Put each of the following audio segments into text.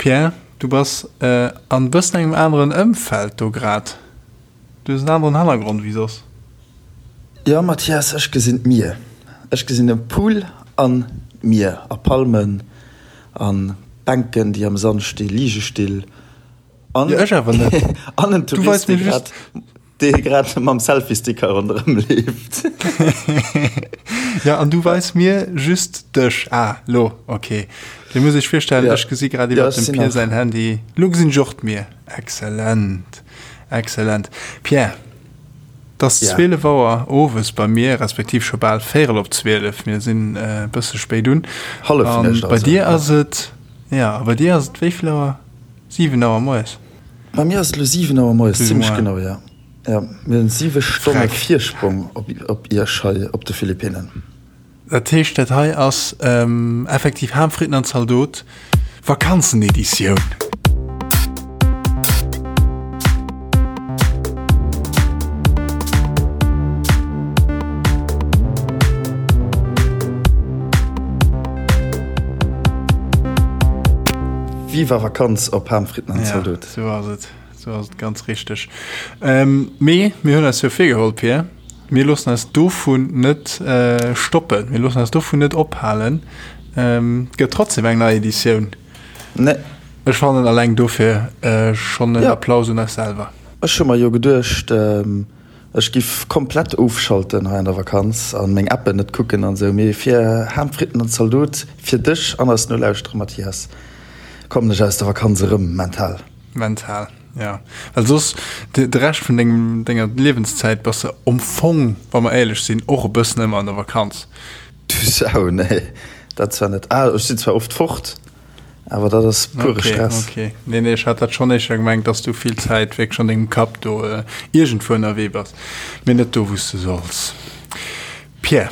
Pierre, du bass an bëssen engem aneren Ëmfeld do grad. Du hues en aneren Hannergrond wéi soss. Jo Mathias, ech gesinn d'Mier. Ech gesinn e Pool an d'Mier a Palmen an Bänken déi am Sand sti, Ligestill an Jo ech awer net. an en Du weis Tourist dee mir just. grad dee grad mam Selfie-Stick hei ronderëm leeft. Jo an du weis mir just dech. Ah lo, ok. Dir musst iech virstellen, Ja. ech gesi grad Ja iwwert ech dem sinn Pierre nach. säin Handy. Lo gesinn ech och d'Mier. Excellent, excellent. Pierre, 't ass Ja. 12 Auer owes bei mir, respektiv scho bal véierel op 12, mir sinn e bësse spéit un. Hallefnuecht An bei also, dir ja. ass et, ja, a bei dir ass et wéi vill Auer? 7 Auer moies? Bei mir ass et elo 7 Auer moies, Plus ou zimmlech moins. genau, ja. Ja, mir hunn 7 Stonne Freck. Virsprong op, op iech hei op de Philippinnen. Dat heescht, dat hei ass effektiv Ham, Fritten an Zaldot, Vakanzeneditioun. Viva Vakanz op Ham, Fritten an Zaldot. Ja, sou ass et. Sou ass et ganz richteg. Mee mir hunn eis jo virgeholl, Pir, mir loossen eis dovun net stoppen, mir loossen eis dovun net ophalen. Et gëtt trotzdem eng nei Editioun. Nee. Ech fannen alleng dofir schonn en Applaus un eis selwer. Ech hu mer jo geduecht, ech giff komplett ofschalten hei an der Vakanz an meng Appen net kucken an esou, mee fir Ham, Fritten an Zaldot, fir dech an eis Nolauschterer, Mathias, kommen ech aus der Vakanz erëm mental. Mental, ja. Well soss, de, de Rescht vun dengem, denger Liewenszäit bass de am Fong, wa mer éierlech sinn, och e bëssen ëmmer an der Vakanz. Du Sau, nee, dat zwar net. Ah, ech sinn zwar oft fort, awer dat ass pure Okay, Stress. okay. Nee, nee, ech hat dat schonn éischter gemengt, dass du vill Zäit wierklech an dengem Kapp do iergendwou ënnerwee bass, mee net do, wou s de solls. Pierre,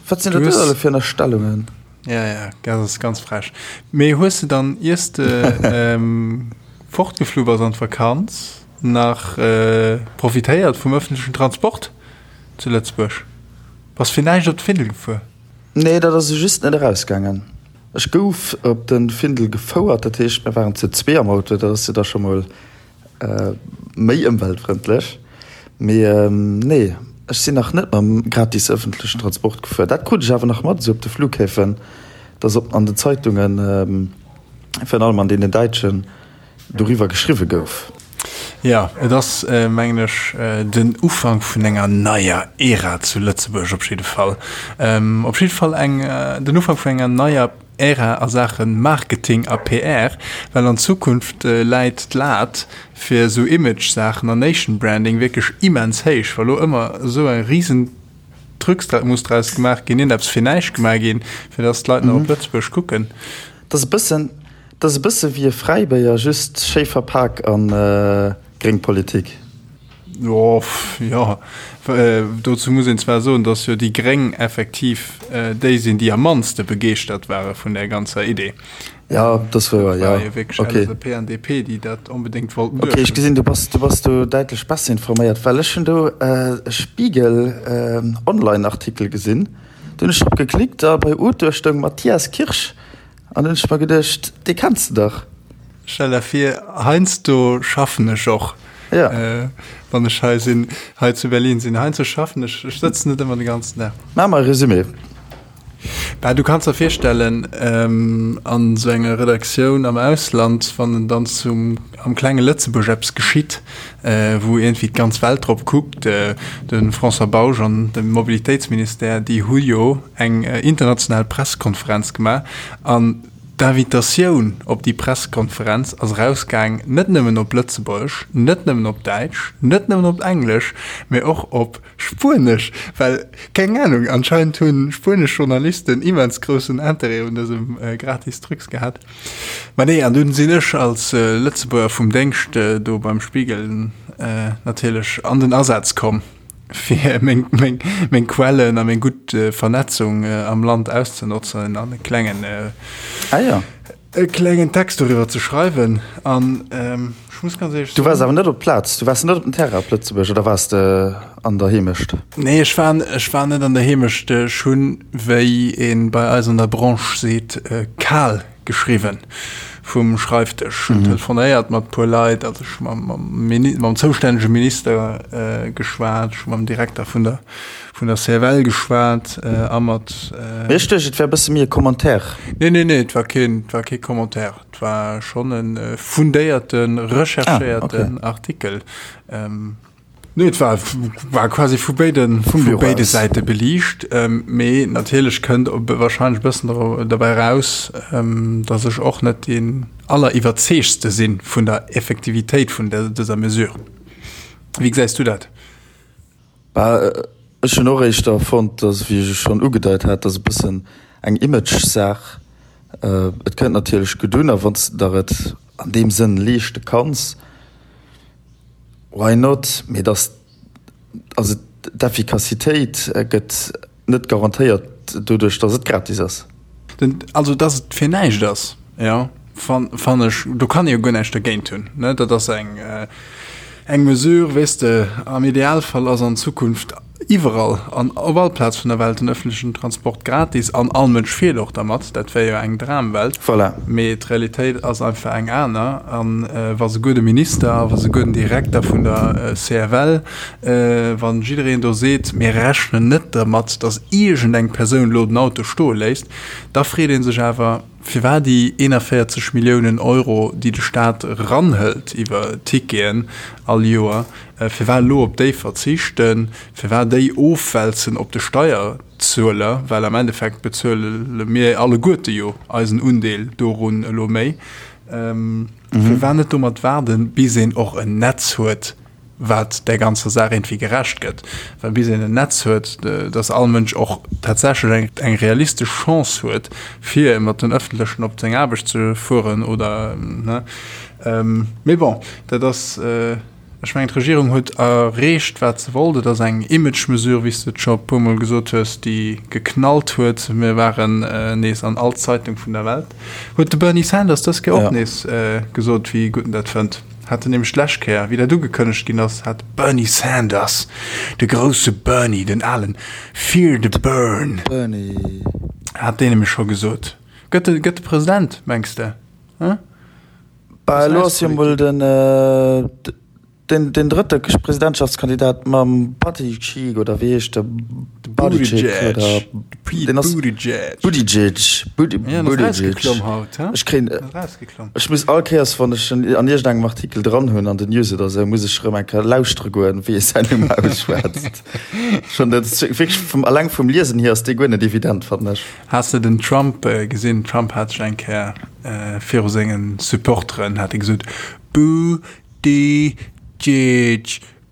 Wat sinn du dat do hues. alle fir Ënnerstellungen? Ja, ja, dat ass ganz frech. Mee hues de dann, iers de fortgeflu bass an d'Vakanz, nach profitéiert vum ëffentlechen Transport zu Lëtzebuerg? Bass fir näischt op de Findel gefuer? Nee, dat ass just net erausgaangen. Ech gouf op de Findel gefouert, dat heescht, mir waren zu zwee am Auto, dat ass jo da scho mol Méi ëmweltfrëndlech. Mee nee, ech sinn nach net mam gratis ëffentlechen Transport gefuer. Dat krut ech awer nach mat, esou op de Flughäfen, dass op an den Zeitungen, virun allem an deenen däitschen, doriwwer geschriwwe gouf. Jo, et ass, mengen ech, den Ufank vun enger neier Ära zu Lëtzebuerg op jidde Fall. Op jidde Fall eng, den Ufank vun enger neier Ära a Saache Marketing a PR, well an Zukunft läit d'Lat fir esou Image-Saachen an Nation Branding wierklech immens héich, wa lo ëmmer esou e risen Trucs muss draus gemaach ginn, iergendeppes fir näischt gemaach ginn, fir dass d'Leit nach op Lëtzebuerg kucken. Dat ass e bëssen, dat ass e bësse wéi e Fräibéier, just schéi verpak an gréng Politik. Jo, jo, dozou muss een zwar soen, datt jo déi Gréng effektiv déi sinn, déi am mannste begeeschtert ware vun där ganzer Idee. Jo, dat ass wouer, jo. Dat war jo wierklech Okay. LSAP an DP, déi dat onbedéngt wollten Okay, ech duerchhunn. gesinn, du bass, du bass do däitlech besser informéiert, well ech hunn do e Spiegel Online-Artikel gesinn. Do hunn ech drop geklickt a bei Auteur stoung Matthias Kirsch an hunn ech mer geduecht, dee kenns de dach. Stell der vir, heiansdo schaffen ech och, Ja. wann ech hei sinn, hei zu Berlin sinn. Heiansdo schaffen ech, ech sëtzen net ëmmer de ganzen Dag. Maach mer e Resumé. Bah, du kanns der virstellen, an esou enger Redaktioun am Ausland, wann dann zum, am klenge Lëtzebuerg eppes geschitt, wou iergendwéi d'ganz Welt drop kuckt, de François Bausch an de Mobilitéitsministère, déi hu jo eng international Pressekonferenz gemaach an D'Invitatioun op déi Presskonferenz ass erausgaang net nëmmen op Lëtzebuergesch, net nëmmen op Däitsch, net nëmmen op Englesch, mee och op Spuenesch, well, keng Anung, anscheinend hu spuenesch Journalisten immens groussen Interêt un dësem gratis Trucs gehat. Mä nee, an dunn sinn ech als Lëtzebuerger vum Déngscht do beim Spiegel natierlech an den Asaz komm. fir meng, meng, meng Quellen a meng gutt Vernetzung am Land auszenotzen an e klengen, ah, ja. e klengen Text doriwwer ze schreiwen. An ähm, ech muss ganz éierlech Du waars awer net op d'Plaz, du waars net op den Terrain op Lëtzebuerg oder waars de an der Heemecht? Nee, ech war, ech war net an der Heemecht. Ech hunn, wéi ee bei eis an der Branche seet, kal. geschriwwen vum Schreifdësch. Hunn telefonéiert mat puer Leit, also ech hu mam zoustännege Minister geschwat, ech hu mam Direkter vun der vun der CFL geschwat a mat. Mee ech duecht, et wär e bësse méi e Commentaire. Nee, nee, nee, et war keen, et war kee Commentaire. Et war schonn e fundéierten, recherchéierten Artikel. Nee, et war, war quasi vu béiden, vu béide Säite beliicht. Mee natierlech kënnt wahrscheinlech e bëssen derbäi eraus, datt ech och net deen alleriwwerzeegtste si vun der Effektivitéit vun dëser Mesure. Wéi gesäis du dat? Bah, ech hunn och éischter fonnt, datt, wéi ech schonn ugedeit hat, datt e bëssen eng Image-Saach. Et kënnt natierlech gutt un, a wann s de der et an deem Sënn leeschte kanns, Why not? Mee dass, also d'Effikassitéit gëtt net garantéiert doduerch, dass et gratis ass. Den, also dass et fir näischt ass, jo, fannen ech, do kann ee jo guer näischt dergéint hunn, ne? Dat ass eng, eng Mesure, weess de, am Idealfall ass an Zukunft iwwerall an op all Plaz vun der Welt den öffentlichen Transport gratis an all Mënsch fiert och dermat, dat wär jo eng Dramwelt. Voilà. Mee d'Realitéit ass einfach eng aner. An wa souguer de Minister a wa souguer den Direkter vun der CFL, wa jiddereen do seet, mir rechnen net dermat, datt iergendeng Persoun elo den Auto stoe léisst, da freet ee sech awer, Firwat déi 41 Milliounen Euro, déi de Staat eranhëlt iwwer Ticketen all Joer, firwat elo op déi verzichten, firwat déi ofwälzen op de Steierzueler, well am Endeffekt bezuele mir alleguerte jo eisen Undeel dorun elo méi, firwat net domat waarden, bis een och en Netz huet, wat där ganzer Saach iergendwéi gerecht gëtt, well bis een en Netz huet, dass all Mënsch och tatsächlech eng, eng realistesch Chance huet, fir mat den Ëffentlechen op seng Aarbecht ze fueren oder, ne. Mee bon, dat ass, ech mengen, d'Regierung huet erreecht, wat se wollt. Et ass eng Image-Mesure, wéi s de et scho e puermol gesot hues, déi geknallt huet. Mir waren nees an all Zeitung vun der Welt. Huet de Bernie Sanders dës Kéier och nees gesot, wéi gutt en dat fënnt. Hat en nämlech d'lescht Kéier, wéi dat ugekënnegt ginn ass, hat Bernie Sanders, de grousse Bernie, den alen Fear the Bern, Bernie. hat deen nämlech scho gesot. Gëtt e, gëtt e President, mengs de? Hm? Bah, elo ass jo mol den, den, den drëtte Presidentschaftskandidat mam Buttigieg, oder wéi heescht de? Buttigieg, oder? Pete Buttigieg. Buttigieg, Buttigieg. Ech kréien. Ech muss all Kéiers, wann ech en an iergendengem Artikel dran hunn, an den News oder esou, muss ech erëm eng Kéier lauschtere goen, wéi e säin Numm ausschwätzt. Schonn dat ass wierklech vum, alleng vum Liesen hier ass dee guer net evident, fannen ech. Has de den Trump gesinn? Trump hat sech eng Kéier viru sengen Supporteren hat e gesot, Boo-dee-jeej,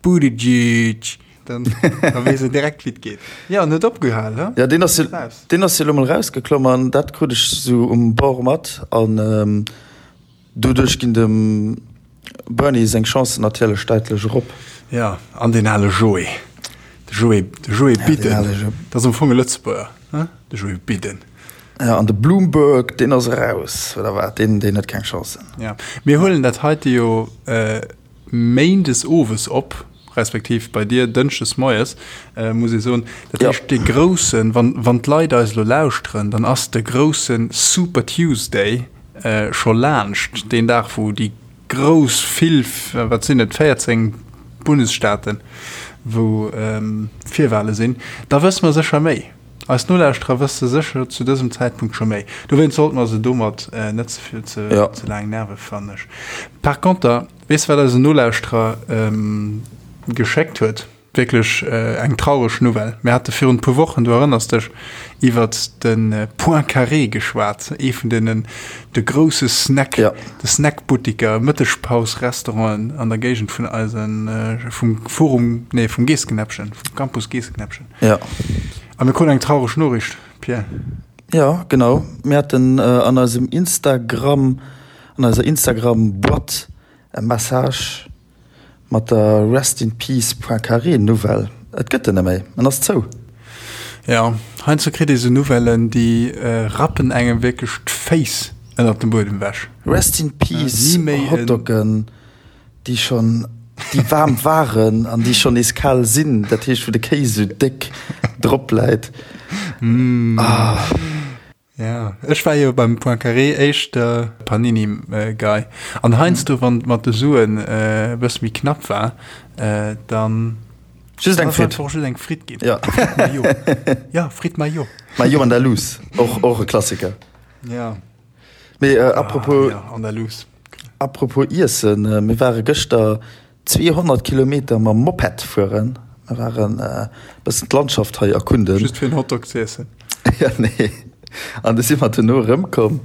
Buttigieg. Dann, da weess en direkt, wéi et geet. Jo, en huet opgehal, he? Ja, deen ass jo, deen ass jo elo mol rausgeklomm an dat krut ech sou um Bord mat an doduerch ginn dem Bernie seng Chancen natierlech däitlech erop. Ja, an deen ale Joe, de Joe, de Joe Biden, dat ass am Fong e Lëtzebuerger, he, de Joe Biden. Ja, an de Bloomberg, deen ass eraus, oder wat? Deen, deen huet keng Chancen. Ja, mir huelen dat heite jo Méindes owes op, respektiv bei dir dënschdes moies, muss ee soen. Dat heescht, dee groussen, wann, wann d'Leit eis elo lauschteren, dann ass de grousse Super Tuesday scho laanscht, deen Dag, wou déi grouss vill, wat sinn et, 14 Bundesstaaten, wou Virwale sinn. Da wësse mer sécher méi. Eis Nolauschterer wësse sécher zu dësem Zäitpunkt scho méi. Dowéinst sollte mer se domat net ze vill, ze laang nerve, fannen ech. Par conter, Weess wat eisen Nolauschterer geschéckt huet? Wierklech eng traureg Nouvelle. Mir hate virun e puer Wochen, du erënners dech, iwwert de Point Carré geschwat, ee vun deenen, de grousse Snack, de Snackbuttiker, Mëttegpaus-Restauranten an der Géigend vun eisen, vum Forum, nee, vum Geesseknäppchen, vum Campus Geesseknäppchen. A mir kruten eng traureg Noriicht, Pierre. Jo, genau. Mir haten an eisem Instagram An eiser Instagram Boîte e Message mat der Rest in Peace Poincaré Nouvelle. Et gëtt en net méi, en ass zou. Jo, heiansdo kritt ee sou Nouvellen, déi rappen engem wierklech d'Féiss ënnert dem Buedem ewech. Rest in Peace Hotdoggen, déi schonn, déi waarm waren an déi schonn nees kal sinn, dat heescht wou de Kéis sou déck drop läit. Ah. Ja, ech war jo beim Poincaré éischter Panini-Guy. An heiansdo, wann et mat de Suen e bësse méi knapp war, dann. Just eng Fritt. Einfach just eng Fritt ginn. Ja. Fritt Mayo. Ja, Fritt Mayo. Mayo Andalous, och, och e Klassiker. Ja. Mee äh, apropos, ah, ja, Andalous. Apropos Iessen, äh, mir ware gëschter 200 Kilometer mam Moped fueren. Mir waren e bëssen d'Landschaft hei erkunden. Just fir en Hotdog ze iessen? Ja, nee. An du si mer duerno erëmkomm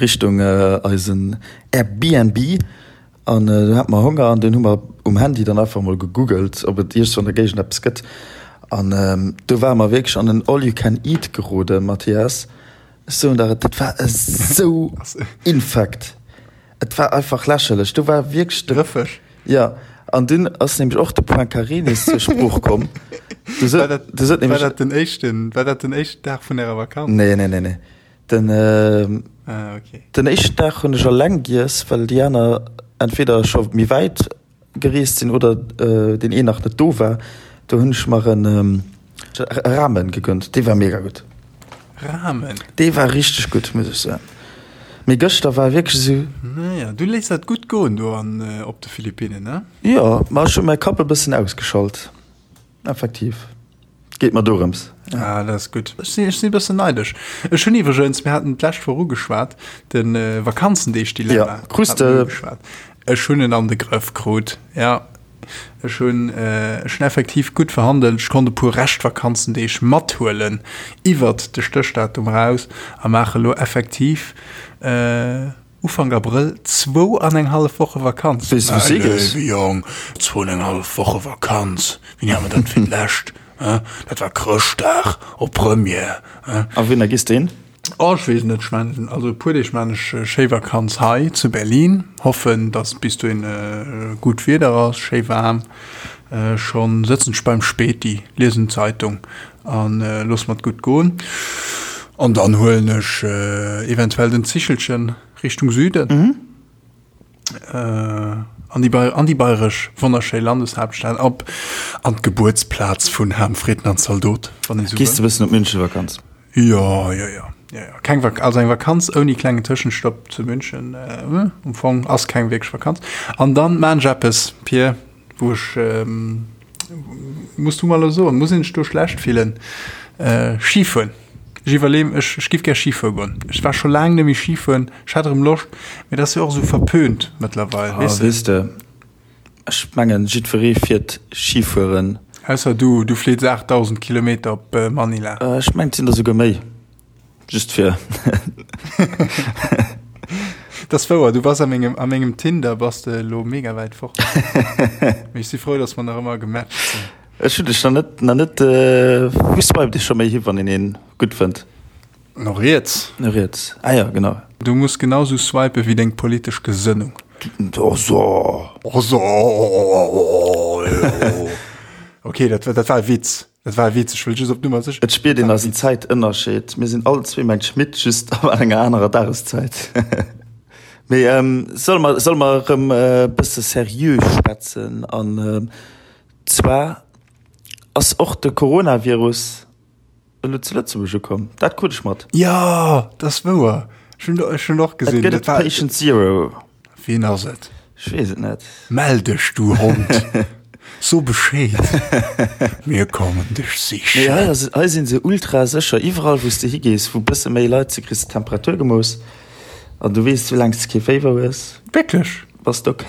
Richtung eisen Airbnb an du hate mer Honger an dunn hu mer um Handy dann einfach mol gegoogelt, ob et iergendwou an der Géigend eppes gëtt. An do ware mer wierklech an en All-you-can-eat geroden, Mathias. Ech soen der et, dat war esou infekt. Et war einfach lächerlech. Do war wierklech de. Rëffeg. Ja, an dunn ass nämlech och de Poincaré nees zur Sprooch komm. Du sot, war dat, du sot nämlech, war dat den éischten, war dat den éischten Dag vun ärer Vakanz? Nee, nee, nee, nee. Den, äh, ah, okay. den éischten Dag hunn ech alleng giess, well déi aner entweder scho méi wäit gereest sinn oder deen een nach net do war, do hunn ech mer en Ramen gegönnt, dee war mega gutt. Ramen? Dee war richteg gutt, muss ech soen. Mee gëschter war wierklech esou. Naja, du léiss dat gutt goen do an op de Philippinnen, ne? Jo, ma ech hu mäi Kapp e bëssen ausgeschalt. Effektiv, geet mer dorëms. Ah, dat ass gutt. Ech sinn, ech sinn e bëssen neidesch. Ech hunn iwwregens, mir haten d'lescht Woch ugeschwat, de Vakanzendeeg-Dilemma. Ja, krus de. Ugeschwat. Ech hunn en an de Grëff krut, ja. Ech hunn, ech hunn effektiv gutt verhandelt. Ech konnt e puer Reschtvakanzendeeg mathuelen iwwert de Stéchdatum eraus a maache lo effektiv, Ufank Abrëll zwou an eng hallef Woche Vakanz. Weess de wou s de higees? Mäi léiwe Jong, zwou an eng hallef Woche Vakanz, wéini hat mer dat fir d'lescht? Dat war Chrëschtdag op Première. A wouhinner gees de hin? Oh, ech weess et net. Ech maachen, also e puer Deeg maachen ech schéi Vakanz hei zu Berlin. Hoffen, dass bis dohin gutt Wieder ass, schéi waarm. Schonn sëtzen ech beim Späti, liesen d'Zeitung An looss mer et gutt goen. An dann huelen ech eventuell den Zichelchen Richtung Süden. An déi an déi bayresch wonnerschéi Landeshaaptstad, op an d'Gebuertsplaz vun Ham Fritten an Zaldot, wann ee sou wëll. Gees de bëssen op München Vakanz? Jo, jo, jo, jo, jo. Keng Vak also eng Vakanz ouni klengen Tëschenstopp zu München, am Fong ass keng wierklech Vakanz. An dann maan ech eppes, Pir. Wou ech, muss du mer elo soen, muss een sech do schlecht fillen? Ski fueren. Ech iwwerleeën, ech, ech giff gär Ski fuere goen. Ech war scho laang net méi Ski fueren. Ech hätt erëm Loscht, mee dat ass jo och esou verpönt mëttlerweil, weess de. Weess de, ech mengen, jiddweree fiert Ski fueren. Ausser du, du fliits 8.000 Kilometer op Manila. Ech mengen, et sinn der souguer méi. Just fir. Dat ass wouer, du bass a mengem, a mengem Tinder bass de elo mega wäit fort. Mee ech si frou, dass mer nach ëmmer gematcht sinn. Ech hunn dech nach net, nach net, wou swiped ee scho méi hi, wann een een gutt fënnt? No riets. No riets, ah jo, genau. Du muss genau sou swipen wéi deng politesch Gesënnung. Oh so. Oh so. Ok, dat, dat war e Witz. Dat war e Witz, ech wëll just op Nummer sécher. Et spiert een eisen Zäitënnerscheed. Mir sinn all zwee mengt Schmitt, just an enger anerer Dageszäit. Mee solle mer, solle mer erëm e bësse seriö schwätzen? An zwar ass och de Coronavirus elo zu Lëtzebuerg ukomm. Dat krut ech mat. Jo, dat ass wouer. Ech hunn, ech hunn och gesinn. Et gëtt et Patient Zero. Wien ass et? Ech weess et net. Mell dech, du Hond! So Bescheed, mir kommen dech sichen. Nee, hei ass, hei sinn se ultra sécher. Iwwerall wou s de higees, wou bësse méi Leit si, kriss de d'Temperatur gemooss. An du weess, soulaang s de kee Féiwer hues, Wierklech? bass de ok.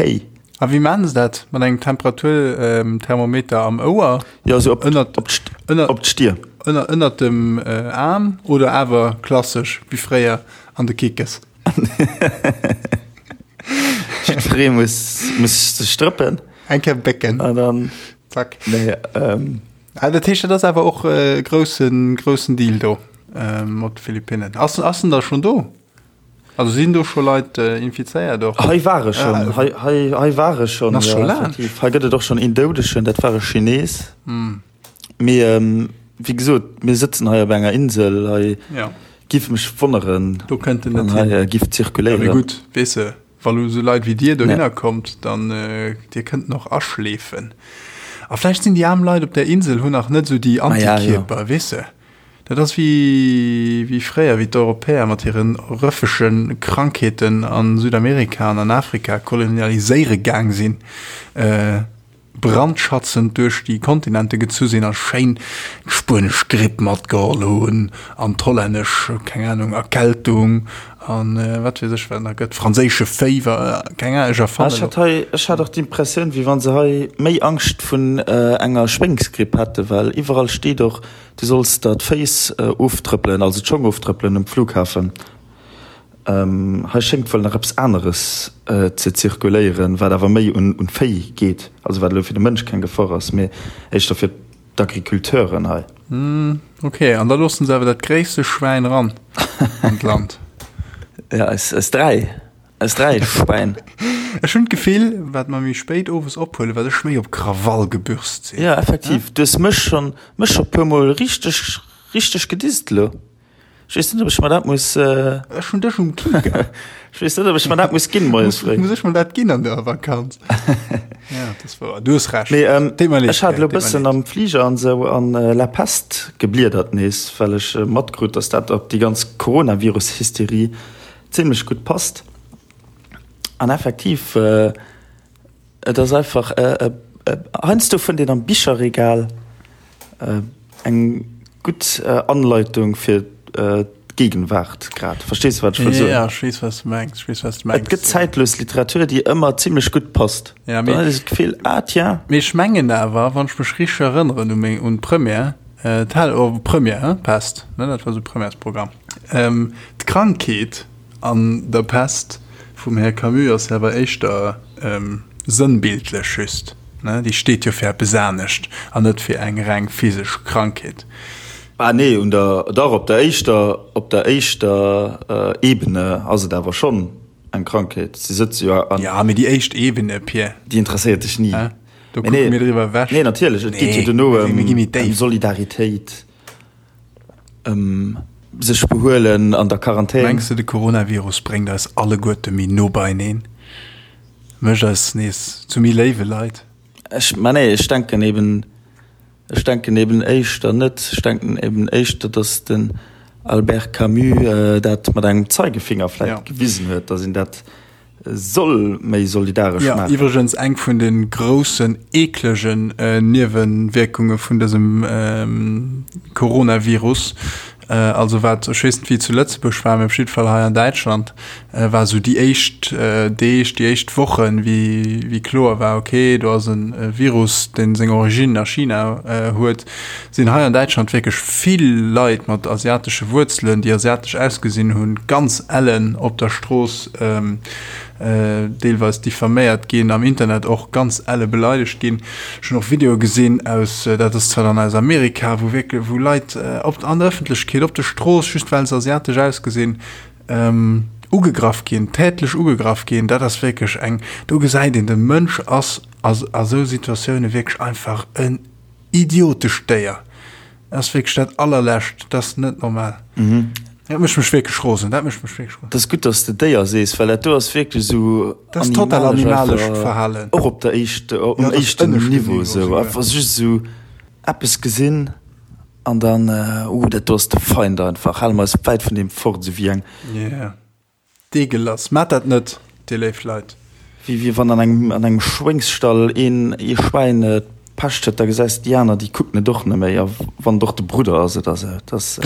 A wéi maachen se dat? Mat engem Temperaturthermometer am Ouer? Jo, esou op, Ënnert, op d'St, ënner, op d'Stier. ënner, ënnert dem Aarm oder awer klassesch wéi fréier an de Kickes? Jiddweree muss, muss sech drëppen. Eng Kéier bécken. An dann. Zack. Nee, ähm. Ah, dat heescht, dat ass awer och e groussen, groussen Deal do mat de Philippinnen. Ass, ass en da schonn do? Also sinn do scho Leit infizéiert och? Hei ware schonn, hei, hei, hei ware schonn. Ass scho laang. Hei gëtt et och schonn een Doudegen, dat war e Chines. Mee wéi gesot, mir sëtzen hei op enger Insel, hei ja. giff mech wonneren, do kënnt en net hin, hei giff zirkuléieren. Ja, mee gutt, weess de, wa lo esou Leit wéi dir dohinner ja. kommt, dann äh, dir kënnt noch aschleefen. A vläicht sinn déi aarm Leit op der Insel hunn nach net esou déi Antikierper, ja, ja. weess de. Dat ass wéi, wéi fréier, wéi d'Europäer mat hire rëffege Krankheeten a Südamerika an an Afrika kolonialiséiere gaang sinn, brandschatzend duerch déi Kontinente gezu sinn a schéin d'spuenesch Gripp matgeholl hunn an d'hollännesch, keng Anung, Erkältung an wat weess ech wat nach gëtt, franséische Féiwer, keng Ahnung, ech erfannen Ech hat hei, ech hat och d'Impressioun, wéi wa se hei méi Angscht vun enger Schwéngsgripp hätten, well iwwerall steet och, Du solls der d'Féiss oftrëppelen, also d'Schong oftrëppelen um Flughafen. Hei schéngt wuel nach eppes aneres ze zirkuléieren, wat awer méi un d'Véi geet, also wat elo fir de Mënsch keng Gefor ass, mee éischter fir d'Agriculteuren hei. Ok, an da loossen se awer dat gréisste Schwäin ran an d'Land. Ja, eis 3. Eis 3 Schwäin. Ech hunn d'Gefill, wat mer méi spéit owes ophuelen, wat ech méi op Krawall gebürst sinn. Jo, effektiv. Du hues mech schonn, mech scho puer mol richteg, richteg gedisst elo. Ech weess net, ob ech mer dat muss. Ech hunn dech um Kieker. Ech weess net, ob ech mer dat muss ginn moies fréi. Muss ech mer dat ginn an der Vakanz? Ja, dat ass wouer. Du hues Recht. Mee ech hat elo e bëssen am Fliger an esou an La Peste gebliedert nees, well ech matkrut, dass dat op déi ganz Coronavirus-Hysterie zimlech gutt passt. An effektiv, et ass einfach, heiansdo fënnt een am Bicherregal eng gutt Anleitung fir d'Gegenwart grad. Verstees de, wat ech wëll soen? Jo, ech weess, wat s de mengs. Ech weess, wat s de mengs. Et gëtt zäitlos Literatur, déi ëmmer zimlech gutt passt. Ja, mee. Dann huet ee sou d'Gefill, ah tiens. Mee ech mengen awer, wann ech mech richteg erënneren u meng, un d'Première, d'Hal, oh, Première, hein, Pest, ne, dat war sou Premièresprogramm. D'Krankheet an der Pest vum Här Camus ass awer éischter sënnbildlech just, ne? Déi steet jo fir eppes anescht an net fir eng reng physesch Krankheet. Ah nee, un der, dach, op der éischter, op der éischter Ebene ass et awer schonn eng Krankheet. Si sëtze jo an. Ja, mee déi éischt Ebene, Pir. Déi interesséiert dech ni. Do kucke mir driwwer ewech. Nee, natierlech, et geet jo duerno ëm Solidaritéit. Ëm sech behuelen an der Quarantän. Mengs de de Coronavirus bréngt eis alleguerte méi no beieneen? Mécht eis nees zu méi léiwe Leit? Ech, ma nee, ech denken eben, ech denken eben éischter net. Ech denken eben éischter, datt den Albert Camus dat mat engem Zeigefinger vläicht gewisen huet, datt een dat Soll méi solidaresch Ja, maachen. iwwregens eng vun de groussen eeklegen Niewewierkunge vun dësem Coronavirus, also wat, ech weess net wéi et zu Lëtzebuerg war, mee op jidde Fall hei an Däitschland war esou déi éischt Deeg, déi éischt Wochen, wéi wéi kloer war, okay, do ass e Virus, dee seng Origine a China huet, sinn hei an Däitschland wierklech vill Leit mat asiatesche Wuerzelen, déi asiatesch ausgesinn hunn, ganz ellen op der Strooss deelweis diffaméiert ginn, am Internet och ganz elle beleidegt ginn. Ech hunn och Videoe gesinn aus, dat ass zwar dann aus Amerika, wou wierklech, wou Leit op, an der Ëffentlechkeet, op der Strooss, just well se asiatesch ausgesinn, ugegraff ginn, tätlech ugegraff ginn. Dat ass wierklech eng, do gesäit een, de Mënsch ass a esou Situatioune wierklech einfach en idiotescht Déier. Dat ass wierklech dat allerlescht, dat ass net normal. Mhm. Dat mécht mech wierklech rosen, dat mécht mech wierklech rosen. Dat ass gutt, dass de Déier sees, well dat do ass wierklech esou Dat ass total animalescht Verhalen. Och op der éischt, um Ja, dat ass éischten ënneschten Niveau Niveau esou. souguer. Einfach just esou eppes gesinn an dann, uh, dat do ass de Feind einfach, hale mer eis wäit vun deem fort, esou wéi eng. Yeah. Deegelass. Maat dat net, dir léif Leit. Wéi wéi wann an engem an engem Schwéngsstall een ee Schwäin d'Pescht huet, da gesäis de déi aner, déi kucken et och net méi, a wann et och de Brudder ass oder esou. Et ass,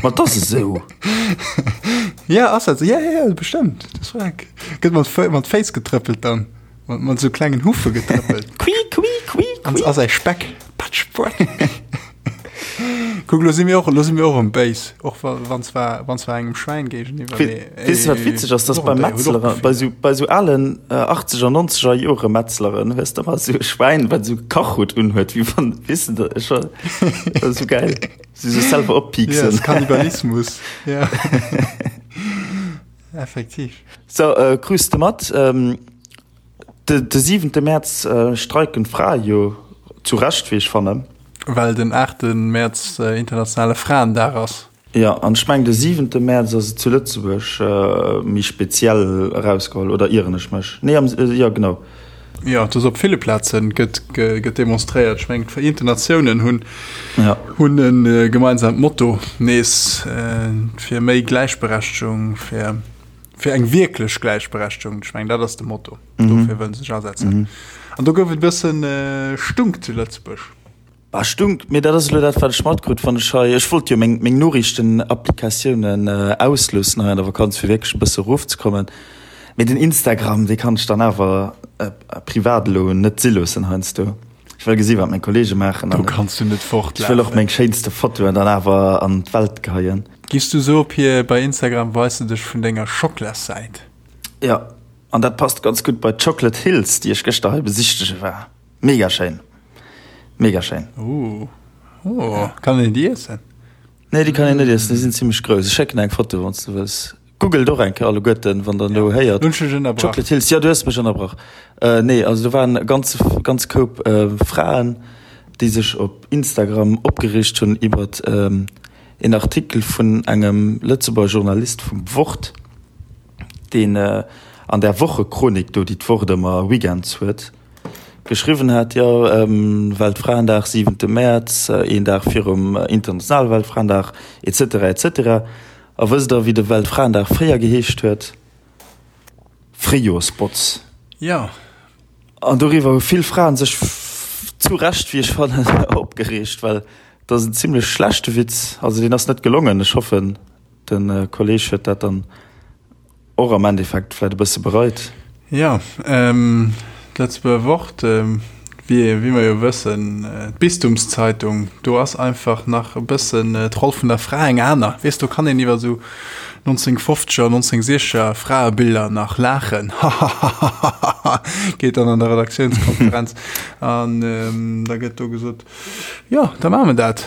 ma et ass esou. Ja, ass dat esou? Ja, ja, ja, bestëmmt. Dat ass wack. Gëtt mat Fë mat Féiss getrëppelt dann. Mat mat esou klengen Huffe getrëppelt. Qui, qui, qui, An qui. a säi Speck. Patsch, patsch. Kuck, lo si mir och, lo si mir och erëm béis, och wa, wann zwar, wann zwar engem Schwäin géigeniwwer, mee Weess de wat witzeg ass, dass bei Metzlere, bei sou, bei sou alen achtzeger, nonzeger Jore Metzleren hues de ëmmer sou e Schwäin, wat sou e Kachhutt unhuet, wéi wann, weess de, ech war, dat ass sou geil, si sech selwer oppieksen. Ja, Kannibalismus, ja. Effektiv. So, krus de mat? De siwente Mäerz streiken d'Frae jo, zu Recht wéi ech fannen. Well den aachte Mäerz internationale Fraendag ass. Jo, an ech mengen de siwente Mäerz ass et zu Lëtzebuerg méi speziell erausgeholl, oder ieren ech mech? Nee, am, jo genau. Jo, et ass op ville Plaze gëtt gëtt demonstréiert. Ech mengen d'Vereenten Natiounen hunn ja. hunn e gemeinsamt Motto nees fir méi Gläichberechtegung, fir fir eng wierklech Gläichberechtegung. Ech mengen dat ass de Motto. Mhm. Dofir wëllen se sech asetzen. Mhm. An do gouf et e bëssen Stunk zu Lëtzebuerg. Bah, stunk, mee dat ass elo dat, wat ech matkrut, wann ech hei, ech wollt jo meng, meng Noriichtenapplikatiounen ausloossen hei an der Vakanz, fir wierklech e bësse erofzekommen. Mee den Instagram, dee kann ech dann awer privat elo net si loossen heiansdo. Ech wëll gesi wat meng Kollege maachen Do kanns du net fortlafen. Ech wëll och meng schéinste Fotoen dann awer an d'Welt geheien. Giss du sou op hir bei Instagram weis de dech vun denger Schoklassäit? Jo, an dat passt ganz gutt bei d'Chocolate Hills, déi ech gëschter hei besichtege war. Mega schéin. Mega schéin. Oh. Oh. Kann een déi iessen? Nee, déi kann een net iessen, déi sinn zimmlech grouss. Ech schécken eng Foto, wann s du wëlls. Googelt och eng Kéier alleguerten, wann der elo héiert. Hunn ech dech ënnerbrach? Chocolate Hills, jo, du hues mech ënnerbrach. Nee, also do waren e ganze, ganz Koup Fraen, déi sech op Instagram opgereegt hunn iwwert een Artikel vun engem Lëtzebuerger Journalist vum Wort, deen an där Wochechronik do, déi d'Wort ëmmer weekends huet, geschriwwen hat, jo, Weltfraendag, siwente Mäerz, een Dag virum internationale Weltfraendag, et cetera, et cetera. A wësst Der, wéi de Weltfraendag fréier geheescht huet? Fréijoersbotz. Jo. An doriwwer hu vill Fraen sech, zu Recht, wéi ech fannen, opgereegt, well dat ass en zimlech schlechte Witz. Also deen ass net gelongen. Ech hoffen, de Kolleeg huet dat dann Och am Endeffekt vläit e bësse bereit. Jo, d'Lëtzebuerger Wort, wéi mer jo wëssen, d'Bistumszeitung, do ass einfach nach e bëssen d'Roll vun der Fra eng aner. Weess, do kann een iwwer esou 1950er, 1960er Fraebiller nach laachen, hahahahaha, geet dann an der Redaktiounskonferenz an da gëtt do gesot, jo, da maache mer dat.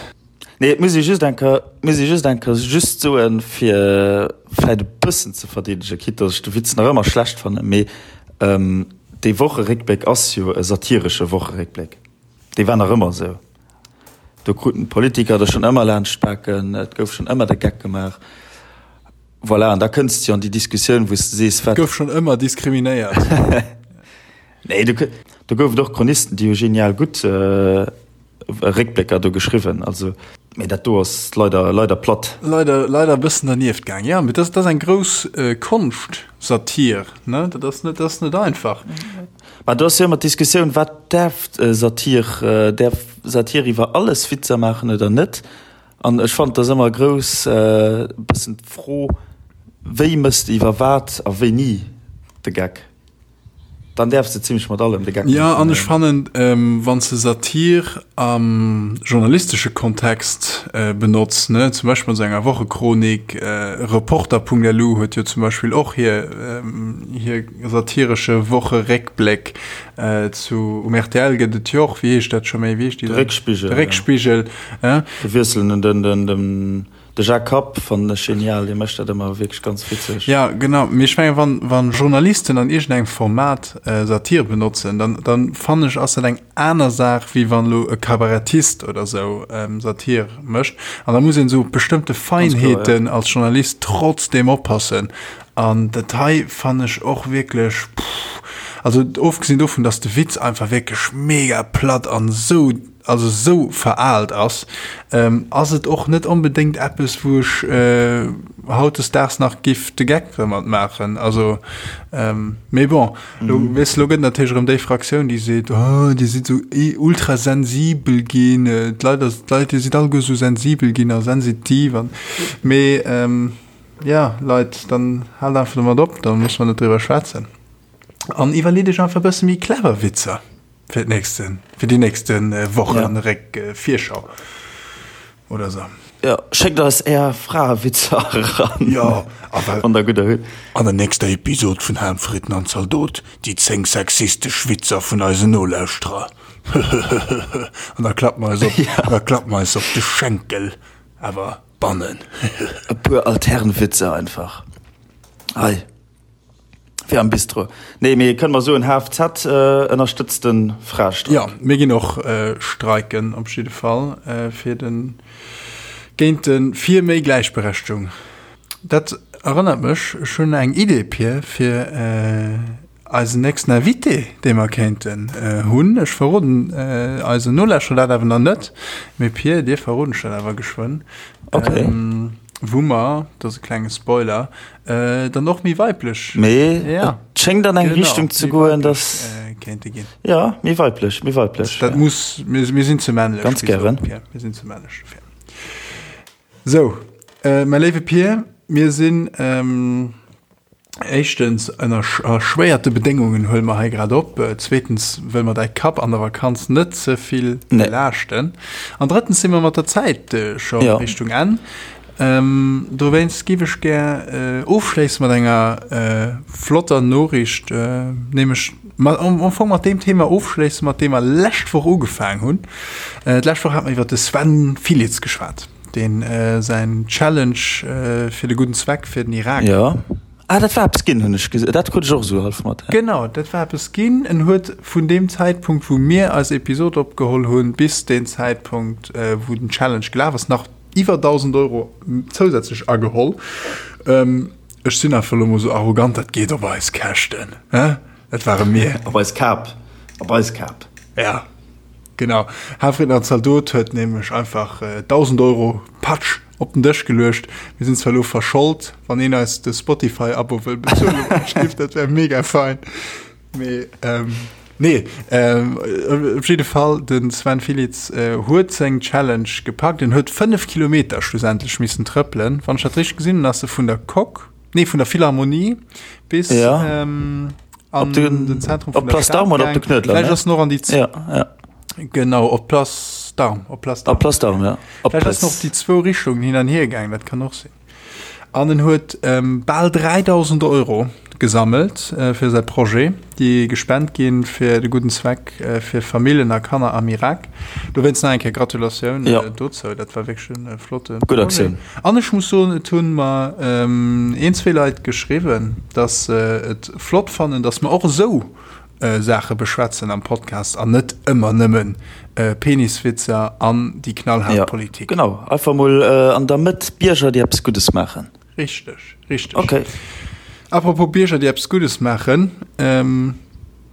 Nee, et muss ee just eng Kéier, muss ee just eng Kéier just soen, fir vläit e bëssen ze verdeedegen, quitte datt ech de Witz nach ëmmer schlecht fannen, mee dee Wocheréckbléck ass jo e satiresche Wocheréckbléck. Dee war nach ëmmer esou. Do kruten d'Politiker der schonn ëmmer laanscht d'Baken, et gouf schonn ëmmer de Geck gemaach. Voilà, an da kënns de jo an déi Diskussioun, wou s de sees, wat. Gouf schonn ëmmer diskriminéiert. Nee, do, do gouf et och Chronisten, déi hu genial gutt Réckblécker do geschriwwen, also, mee dat do ass leider, leider platt. Leider, leider e bëssen dernieft gaang, jo, mee dat, dat ass eng grouss Konscht, Satir, ne, dat ass net, dat ass net einfach. Mä do ass jo ëmmer d'Diskussioun, wat däerf Satir, däerf Satir iwwer alles Witzer maachen oder net? An ech fannen, et ass ëmmer grouss e bëssen d'Fro, wéi méchs de iwwer wat a wéini de Geck? Dann däerfs de zimmlech mat allem de Geck maachen. Jo, an ech fannen, wann s de Satir am journalistesche Kontext benotz, ne, zum Beispill an esou enger Wochechronik, Reporter.lu huet jo zum Beispill och hir, hir satiresche Wocheréckbléck, zu, um rtl gëtt et jo och, wéi heescht dat scho méi, wéi heescht déi? De Réckspigel. De Réckspigel, eh. De Wiessel, den, den, den. De Jacques Kapp fannen ech genial, dee mécht dat ëmmer wierklech ganz witzeg. Ja, genau. Mee ech mengen, wann, wann Journalisten an iergendengem Format Satir benotzen, dann, dann fannen ech, ass dat eng aner Saach, wéi wann elo e Kabarettist oder sou Satir mécht. An da muss een esou op bestëmmte Feinheeten als Journalist trotzdem oppassen. An dat hei fannen ech och wierklech, pff, also ofgesinn dovun, dass de Witz einfach wierklech mega platt an esou, also sou veraalt ass, ass et och net onbedéngt eppes, wou ech hautdesdaags nach giff de Geck domat maachen. Also, mee bon, lo, weess de, lo gëtt natierlech erëm déi Fraktioun, déi seet, oh, dir sidd sou ultrasensibel ginn, d'Leit, d'Leit, dir sidd alleguer sou sensibel ginn a sensitiv an, mee jo, Leit, dann haalt einfach domat op, da musse mer net driwwer schwätzen an iwwerleet iech einfach e bësse méi clever Witzer. Fir d'nächste, fir déi nächste Wochen Réck Virschau oder sou. Jo, schéckt eis är Fraewitzer eran. Jo, a well. Wann der gudder hutt. An der nächster Episod vun Haamfritten an Zaldot, déi 10 sexistesch Witzer vun eisen Nolauschterer. Höhöhöhö. An da klappe mer eis op, da klappe mer eis op de Schenkel, awer bannen. E puer Alternwitzer einfach. Hei. Wéi am Bistro. Nee, mee kënne mer soen, HFZ ënnerstëtzt de Fraestreik. Jo, mir ginn och streiken op jidde Fall fir den, géint de, fir méi Gläichberechtegung. Dat erënnert mech, ech hunn eng Idee, Pir, fir. Eisen nächsten Invité, dee mer kéinten hunn, ech verroden eisen Nolauschterer dat awer nach net, mee Pir, dir verroden ech dat awer geschwënn, Okay. wou mer, dat ass e klenge Spoiler, dann och méi weiblech, Mee ja, et schéngt an eng genau, Richtung ze méi goen, weiblech dass, kéinte ginn. jo, méi weiblech, méi weiblech, Dat ja. muss, mir, mir sinn ze männlech, Ganz wéi gesot, gären. Pir, mir sinn ze männlech dofir. Sou, mäi léiwe Pir, mir sinn, Éischtens, ënner erschwéierte Bedéngungen huele mer hei grad op. Zweetens wëlle mer däi Kapp an der Vakanz net ze vill belaaschten. An drëttens si mer mat der Zäit scho Richtung Enn. Dowéinst giff ech gär ofschléisse mat enger flotter Noriicht, nämlech am Fong mat deem Thema ofschléisse mat deem mer lescht Woch ugefaang hunn. D'lescht Woch hate mer iwwer de Sven Filitz geschwat. Deen säin Challenge fir de gudden Zweck fir den Irak. Jo. Ah, dat war eppes ginn, hunn ech gesinn. Dat krut ech och esou hallef mat. Genau, dat war eppes ginn. En huet vun deem Zäitpunkt, wou mir eis Episod opgeholl hunn, bis deen Zäitpunkt, wou den Challenge gelaf ass, nach iwwer 1.000 Euro zousätzlech ageholl. Ech sinn einfach elo mol esou arrogant, dat geet op eis Käschten, hä? Dat ware mir. Op eis Kap. Op eis Kap. Ja. Genau, Hafriedner Zaldot huet nämlech einfach 1.000 Euro, patsch, op den Dësch geluecht. Mir sinn zwar elo verschold, wann een eis de Spotify-Abo wëll bezuelen, dat wär mega fein. Mee nee, op jidde Fall, de Sven Filitz huet seng Challenge gepackt. En huet 5 Kilometer schlussendlech missen trëppelen. Wann ech dat richteg gesinn hunn, ass e vun der Coque, nee vun der Philharmonie bis ja. ähm, an den, den Zentrum op Place d'Armes oder op de Knuedler Vielleicht ass noch an die ja, ja. Genau op Place d'Armes op Place d'Armes. Place d'Armes ja. Op Vielleicht ass noch die zwou Richtungen hin an hier gaang, dat kann och sinn. An en huet ähm, bal 3000 Euro gesammelt äh, fir säi Projet, déi gespent ginn fir de gudden Zweck äh, fir Familljen a Kanner am Irak. Dowéinst nach eng Kéier Gratulatioun ja. äh, dozou, dat war wierklech en äh, flotte Gutt Aktioun. An ech muss soen, et hunn mer een, zwee Leit geschriwwen, dass se et flott fannen, dass mer och esou Saache beschwätzen am Podcast an net ëmmer nëmmen Peniswitzer an déi knallhaart Politik. Jo, genau. Einfach mol an der Mëtt Bierger, déi eppes Guddes maachen. Richteg, richteg. Okay. Apropos Bierger, déi eppes Guddes maachen.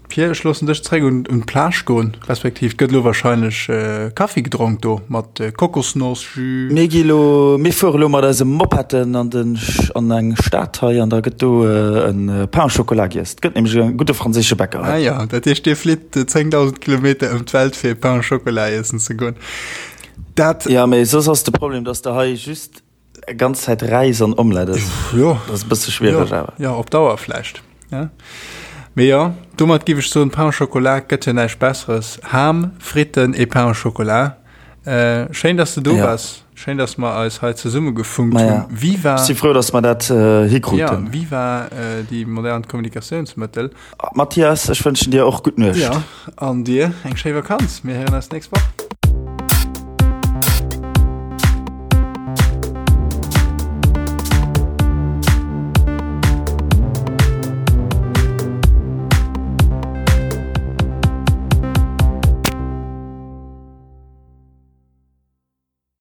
Pierre, ech loossen dech zréck un d'Plage goen, respektiv gëtt elo wahrscheinlech Kaffi gedronk do mat Kokosnoss-Jus. Mir gi lo, mir fuere lo mat eise Mopetten an den, an eng Stad hei an da gëtt do e Pain au chocolat giess. Et gëtt nämlech e gudde franséische Bäcker hei. Ah jo, dat heescht dir flitt 10.000 Kilometer ëm d'Welt fir e Pain au chocolat iessen ze goen. Dat. Jo, mee soss ass de Problem, dass de hei just Ganz Zäit Räis an Omelette ass. Jo. Dat ass e bësse schwiereg jo, awer. Jo, op Dauer vläicht. Ja. Mee jo, domat giff ech soen, Pain au Chocolat gëtt jo näischt Besseres. Ham, Fritten et Pain au Chocolat. Äh, schéin, dass de do Ja. waars. Schéin, dass mer eis hei zesummegefunkt Maja. hunn. Viva. Ech si frou, dass mer dat äh, hikruten. Ja, viva äh, déi modern Kommunikatiounsmëttel. Mathias, ech wënschen dir och gutt Nuecht. Ja, an dir eng schéi Vakanz. Mir héieren eis d'nächst Woch.